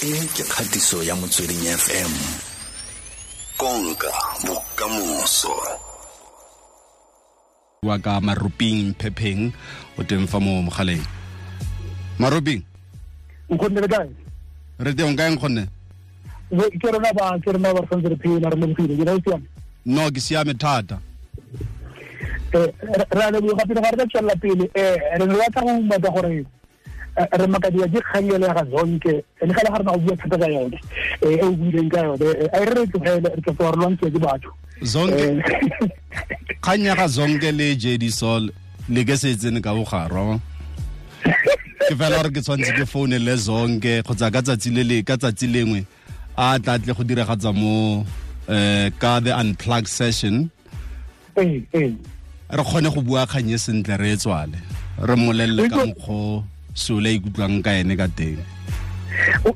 E ke kgatiso ya Motsweding FM. Konka bokamoso. Wa ka Maruping Phepheng o teng fa mo mogaleng. Maruping. Nkgonne le kae? Re teng kae nkgonne? Ke rona ba ke rona ba santse re phela re lebogile ke siame. No ke siame thata. Re a leboga pele ga re ka tswelela pele re ne re batla go umaka gore re makadiwa ke kgang ele ya ga Zonke le ga le ga rena go bua thata ka yone e o buileng ka yone a re re tlogele re tla re lwantshiwa ke batho. Zonke kgang ya ga Zonke le JD Sol le ke se tsene ka bogarwa. Ke fela gore ke tshwanetse ke foune le Zonke kgotsa ka tsatsi le le ka tsatsi lengwe a tla tle go diragatsa mo ka the unplug session. Re kgone go bua kgang e sentle re e tswale re mmolelele ka mokgwa sole ikutlwang ka ene ka teng.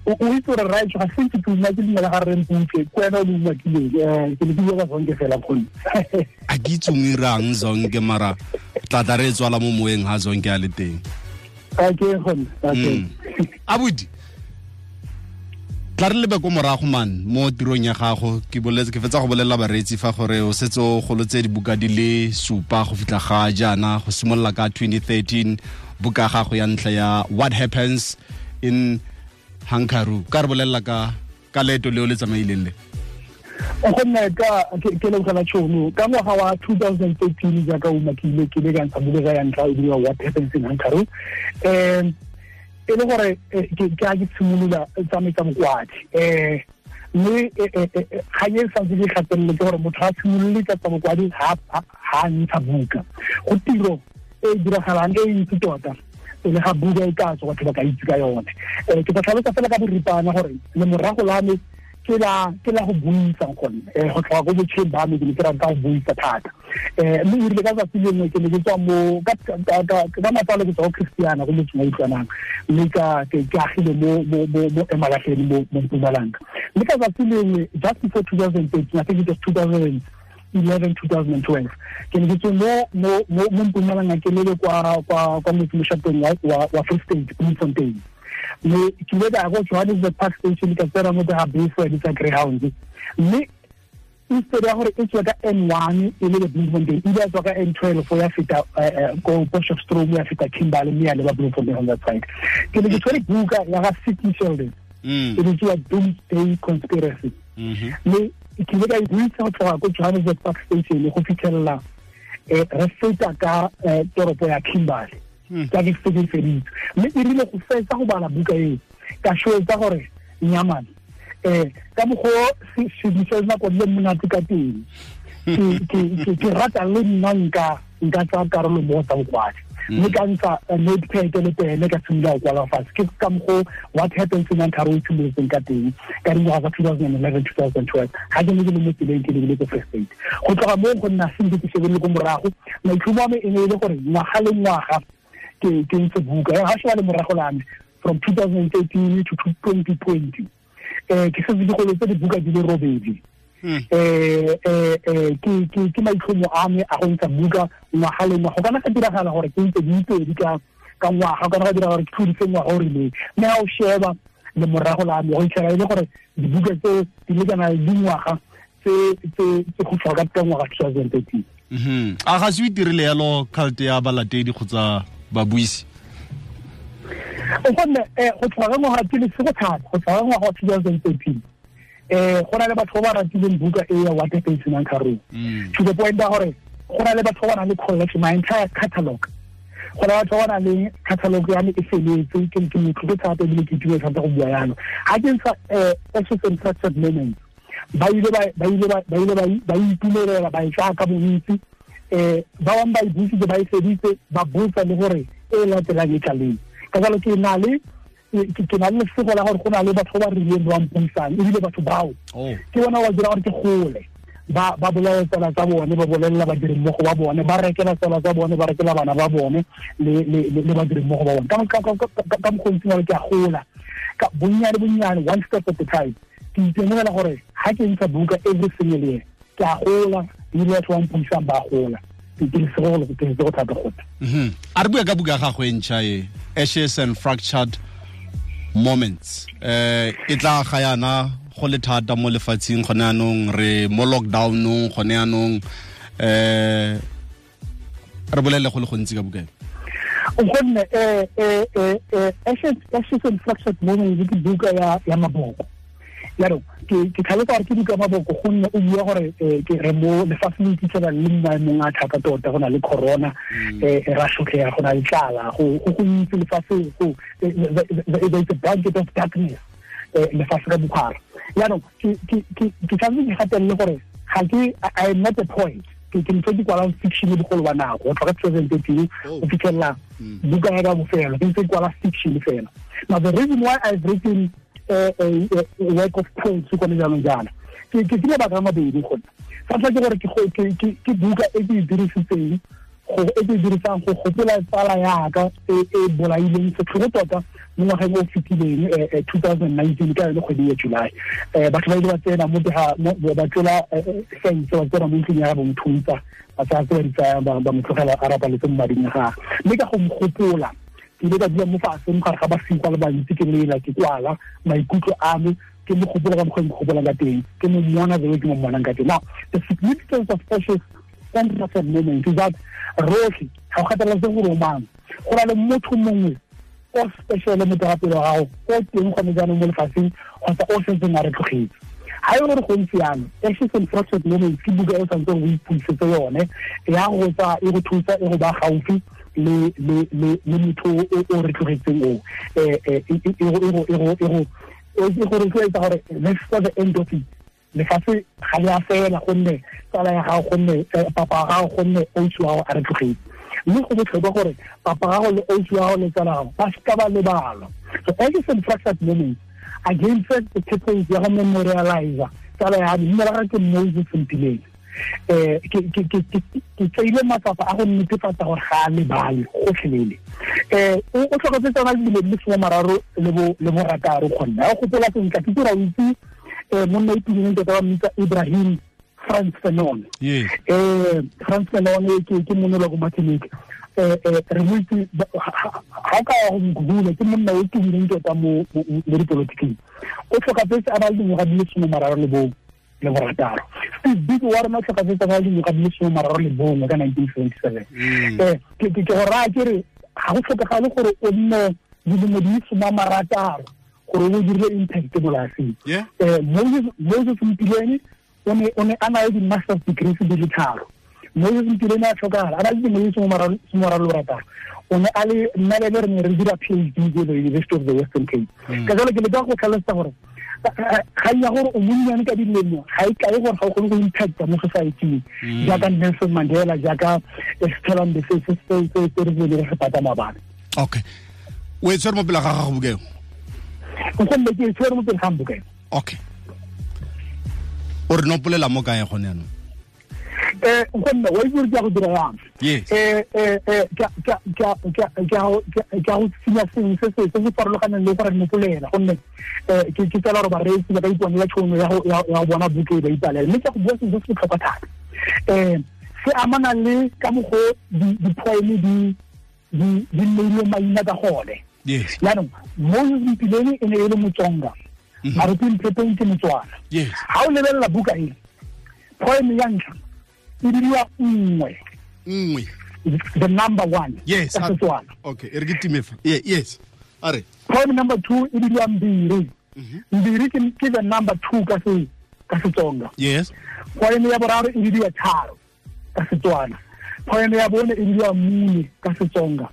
O itse gore right ga se ke tuma ke dumela ga re mputse ke wena o le umakileng ke ne ke bua ka Zonke fela kgone. A ke itse o irang Zonke mara tla re tswala mo moeng ha Zonke a le teng. Okay kgone. Okay. Abuti tla re lebe ko morago man mo tirong ya gago ke boletse ke fetsa go bolelela bareetsi fa gore o setse o golotse dibuka di le 7 go fitlha ga jaana go simolola ka 2013 buka gago ya ntlha ya What Happens in Hankaru. Ka re bolelela ka leeto leo le tsamaileng le. Gonne ka ke lebogela tšhono ka ngwaga wa 2013 jaaka o umakile ke le ka ntsha buka ya ntlha e bidiwa What Happens in Hankaru. E le gore ke a ke tshimolola tsamaisa bokwadi mme kgang e santse ke gatelele ke gore motho ga simolole ka tsa bokwadi ha ntsha buka go tiro e diragalang e ntsi tota pele ga buka e ka tswa batho ba ka itse ka yone. Ke tla tlhalosa fela ka boripana gore lemorago la me ke la go buisa gone go tlhoka ko botšheng ba me ke ne ke rata go buisa thata. Mme e rile ka tsatsi lengwe ke ne ke tswa mo ka matsalo ke tswa ko Christiana go motseng wa Utlwanang mme ke agile mo Emalahleni mo Mpumalanga. Mme ka tsatsi lengwe just before 2013, I think it was 2011, 2012, ke ne ke tswe mo Mpumalanga ke lebe kwa motsemoshateng wa Free State, Bloemfontein. Mme ke ile ka ya ko Johannesburg Park Station ka tsena mo ga bese tsa Greyhound. Mme instead ya gore e tswe ka N1 e le Bloemfontein, e ile ya tswa ka N12 ya feta ko Potchefstroom ya feta Kimberley mme ya leba Bloemfontein on that side. Ke ne ke tshwere buka ya ga Sidney Sheldon e bitsiwa Doomsday Conspiracy. Mme ke ile ka e buisa go tloga ko Johannesburg Park Station go fitlhelela re feta ka toropo ya Kimberley. Ka ke setse feditse. Mme e rile go fetsa go bala buka eo ka shwetsa gore nyamane ka mokgwa sedisa nako le monate ka teng ke rata le nna nka tsaya karolo mo tsa bokwadi. Mme ka ntsha notepad le pene ka simolola go kwala fatshe. Ke ka mokgwa What Happens in Hankaru e simolotseng ka teng ka dingwaga tsa 2011, 2012 ga ke ne ke le mo tseleng ke lebile ko Free State. Go tloga moo go nna sentle ke shebelele ko morago maitlhomo a me e ne e le gore ngwaga le ngwaga ke ntse buka ga sheba le morago la me from 2013 to 2020 ke setse ke golotse dibuka di le 8. Ke maitlhomo a me a go ntsha buka ngwaga le ngwaga. Go kana ga diragala gore ke ntse di pedi ka ngwaga, go kana ga diragala gore ke tlhodise ngwaga o rileng. Mme ga o sheba le morago la me go itlhela e le gore dibuka tse di lekana le dingwaga tse go tlhoka ka ngwaga 2013. A ga se o itirile yalo cult ya balatedi kgotsa babuisi? Gonne go tlhoka ka ngwaga ke lesego thata go tlhoka ka ngwaga wa 2013 go na le batho ba ba ratileng buka e ya What Happens in Hankaru to the point ya gore go na le batho ba ba nang le collection, my entire catalog. Go na le batho ba ba nang le catalog ya me e feletse ke motlotlo thata ebile ke itumela thata go bua yalo. Ga ke ntsha Ashes and Fractured Moments ba ile ba itumelela ba e tsaya ka bontsi. Ba bangwe ba e buisitse ba e feditse ba botsa le gore e latelang e tla leng. Ka jalo ke na le lesego la gore go na le batho ba rileng ba mpuisang ebile batho bao ke bona ba dira gore ke gole ba bolela tsala tsa bone ba bolelela badirimmogo ba bone ba rekela tsala tsa bone ba rekela bana ba bone le badirimmogo ba bone ka mokgwa o ke a gola ka bonnyane bonnyane one step at a time. Ke itemogela gore ga ke ntsha buka every single year ke a gola ebile batho ba mpuisang ba gola. Ke lesego thata go. A re bua ka buka ya gago e ntšha e Ashes and Fractured Moments. E tla ga yana go le thata mo lefatsheng gone anong re mo lockdownong gone anong re bolele go le gontsi ka buka. Gonne Ashes and Fractured Moments ke buka ya maboko. Jaanong ke tlhalosa gore ke buka ya maboko gonne o bua gore ke re mo lefatsheng le iphitlhela le mo maemong a thata tota, go na le corona, ra sotlega, go na le tlala, go gontsi lefatshe, go there is a blanket of darkness lefatshe ka bophara. Jaanong ke tshwanetse ke gatelele gore ga ke, I am not a poet. Ke ntse ke kwalang fiction bogolo ba nako go tloga 2013 go fitlhelela buka ya ka bofelo, ke ntse ke kwala fiction fela. Now the reason why I've written a work of poetry gone jaanong jaana ke mabaka a mabedi. Gone sa ntlha ke gore ke buka e ke e dirisitseng e ke e dirisang go gopola tsala yaka e bolaileng setlhogo tota mo ngwageng o fetileng 2019 ka yone kgwedi ya July. Batho ba ile ba tsena mo ba tlola fence, ba tsena mo ntlong ya bo mothuntsa, ba tsaya tse ba di tsayang, ba mo tlogela a rapaletse mo mading a gagwe. Mme ka go mo gopola ke ile ka dula mo fatshe mo gare ga basiko le bantsi, ke lela, ke kwala maikutlo a me, ke mo gopola ka mokgwa ke mo gopolang ka teng, ke mo mmona the way ke mo mmonang ka teng. Now the significance of Ashes and Fractured Moments is that rotlhe ga go kgathalesege gore o mang, go na le motho mongwe o special mo teng ga pelo ya gago o teng gone jaanong mo lefatsheng kgotsa o setseng a re tlogetse. Ga e gore go ntse jalo, Ashes and Fractured Moments ke buka e o tshwanetseng o ipuisetse yone, ya go tsa e go thusa e go ba gaufi le motho o re tlogetseng o e go rotloetsa gore this is the end of it. Lefatshe ga le a fela gonne tsala ya gago, gonne papa wa gago, gonne ausi wa gago a re tlogetse. Mme go botlhokwa gore papa gago le ausi wa gago le tsala gago ba seka ba lebala. So Ashes and Fractured Moments again first the purpose ya go memorialize tsala ya me, mme la gagwe ke Moses Mpileng. Ke tseile matsapa a go netefatsa gore ga a lebale gotlhelele. O tlhokafetse tsona dilo di le 36 kgonne ga o gopola sentle, ke dira o itse monna o tumileng tota ba mmitsa Ibrahim Frantz Fanon. Frantz Fanon ke monna wa ko Martinique. Re mo itse ga o ka ya go mo google, ke monna o tumileng tota mo dipolotiking. O tlhokafetse a ba le dingwaga di le 36. Steve Biko wa rona o tlhokafetse a ba le dingwaga di le 31 ka 1977. Ke go raya ke re ga go tlhokagale gore o nne dilemo di le 60 gore o dirile impact mo lefatsheng. Moses Mpileni o ne a na le di-master's degrees di le 3. Moses Mpileni a tlhokagala a na le dilemo di le 36. O ne a le nna le re ne re dira PhD ko the University of the Western Cape. Ka jalo ke leka go tlhalosa gore ga ya gore o monnyane ka dilemo ga e kae gore ga o kgone go impacta mo society-ing jaaka Nelson Mandela, jaaka Stella Mbese se re re se pata maabane. Okay, o e tshwere mo pele ga gago buka eo? Gonne ke e tshwere mo pele ga buka eo. Okay, o re nopolela mo kae gone jaanong? Gonne wa itse gore ke ya go dira yang? Ke a go tsenya sengwe se se farologaneng le gore nopolela, gonne ke tsela gore bareetsi ba ka iponela tšhono ya go bona buka e ba ipalela. Mme ke go bua sengwe se se botlhokwa thata, se amana le ka mokgwa di-poem di neilwe maina ka gone. Jaanong Moses Mpileni e ne e le Motsonga, Maruti Mphepheng ke Motswana. Ga o lebelela buka e, poem ya ntlha e bidiwa nngwe, the number one. Yes, ka Setswana. Okay, e re ke time fa. Yes, a re poem number 2 e bidiwa Mbiri. Mbiri ke the number 2 ka Setsonga. Yes. Poem ya boraro e bidiwa Tharo ka Setswana. Poem ya bone e bidiwa Mune ka Setsonga.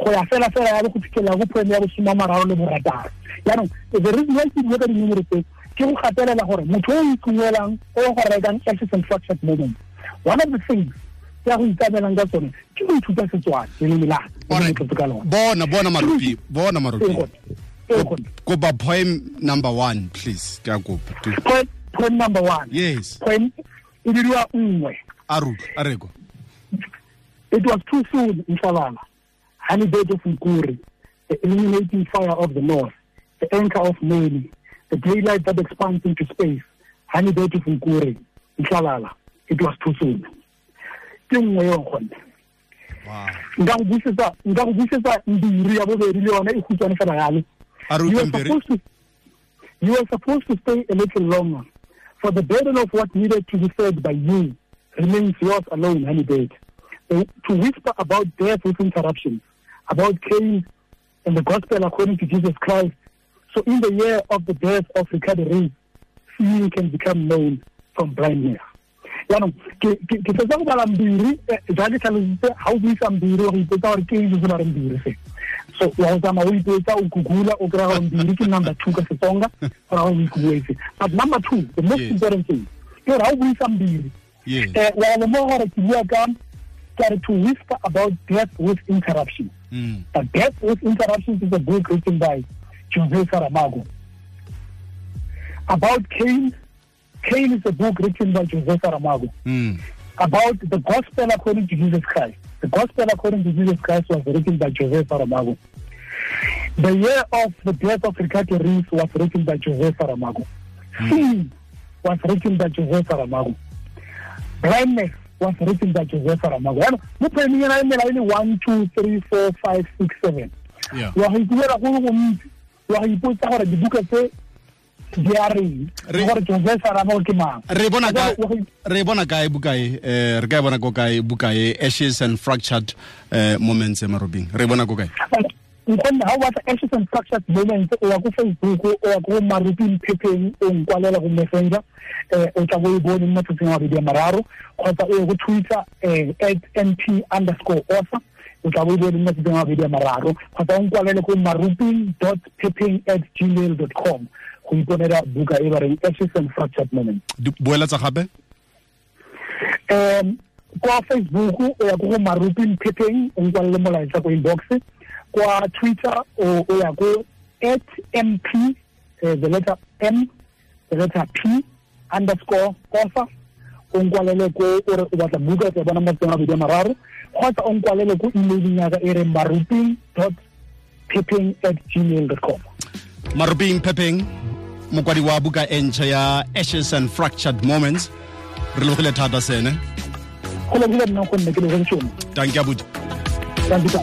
Go ya fela fela ya go fitlhela go poem ya bo 36. Jaanong the reason why ke bua ka dinomoro tse ke go gatelela gore motho o itumelelang o go rekang Ashes and Fractured Moments, one of the things tsa go ikamelang ka tsone ke go ithuta Setswana le leleme la ka lona. Bona Marupi, bona Marupi. Kopa poem number 1 please, ke a kopa. Poem number 1. Yes. Poem e bidiwa nngwe. A re go. It was too soon, Mhlabana. Honey bird of Nkuri, the illuminating fire of the north, the anchor of Meli, the daylight that expands into space. Honey bird of Nkuri, Mhlabana. It was too soon. Ke nngwe eo gone. Nka go busetsa mbiri ya bobedi le yone e khutshwane fela yalo. You were supposed to stay a little longer, for the burden of what needed to be said by you remains yours alone, Honeybird. To whisper about death with interruptions, about Cain and the gospel according to Jesus Christ. So in the year of the death of Ricardo Reis, seeing can become known from blindness. Jaanong ke fetsa go bala Mbiri, jaaka tlhalositse, ga o buisa Mbiri wa go ipotsa gore ke eng se se ba reng Mbiri se. So wa go tsamaya o ipotsa, o google, o kry-a gore Mbiri ke number 2 ka Setsonga, gore o ikuetse. But number 2, the most important thing, ke gore ga o buisa Mbiri, wa lemoga gore ke bua ka to whisper about death with interruptions. But Death with Interruptions is a book written by Jose Saramago. About Cain, Cain is a book written by Jose Saramago. About the gospel according to Jesus Christ. The gospel according to Jesus Christ was written by Jose Saramago. The Year of the Death of Ricardo Reis was written by Jose Saramago. Sin was written by Jose Saramago. Blindness was written by Jose Saramago. Mo poemeng ena e mela e le 1 2 3 4 5 6 7. Wa go ikuela go le gontsi, wa go ipotsa gore dibuka tse di a reng, gore Jose Saramago ke mang. Re bona kae buka e? Re ka e bona ko kae buka e, Ashes and Fractured Moments, Maruping? Re bona ko kae? Nkgonne ha o batla Ashes and Fractured Moments, o ya ko Facebook, o ya ko Maruping Phepheng, o nkwalela go Messenger, o tla bo e bone mo matsatsing a mabedi a mararo, kgotsa o ye go Twitter @mp_author, o tla bo e bone mo matsatsing a mabedi a mararo, kgotsa o nkwalele ko maruping.phepheng@gmail.com go iponela buka e ba reng Ashes and Fractured Moments. Boela tsa gape? Kwa Facebook o ya ko go Maruping Phepheng, o nkwalele molaetsa ko inbox. Kwa Twitter o ya ko @mp, the letter M, the letter P _ author, o nkwalele ko o re o batla buka tsa bona matsatsing a mabedi a mararo, kgotsa o nkwalele ko emailing ya ka e reng maruping.phepheng@gmail.com. Maruping Phepheng, mokwadi wa buka e ntšha ya Ashes and Fractured Moments. Re lebogile thata sene. Go lebogile nna gonne ke lebogile tšhono. Dankie abuti. Dankie.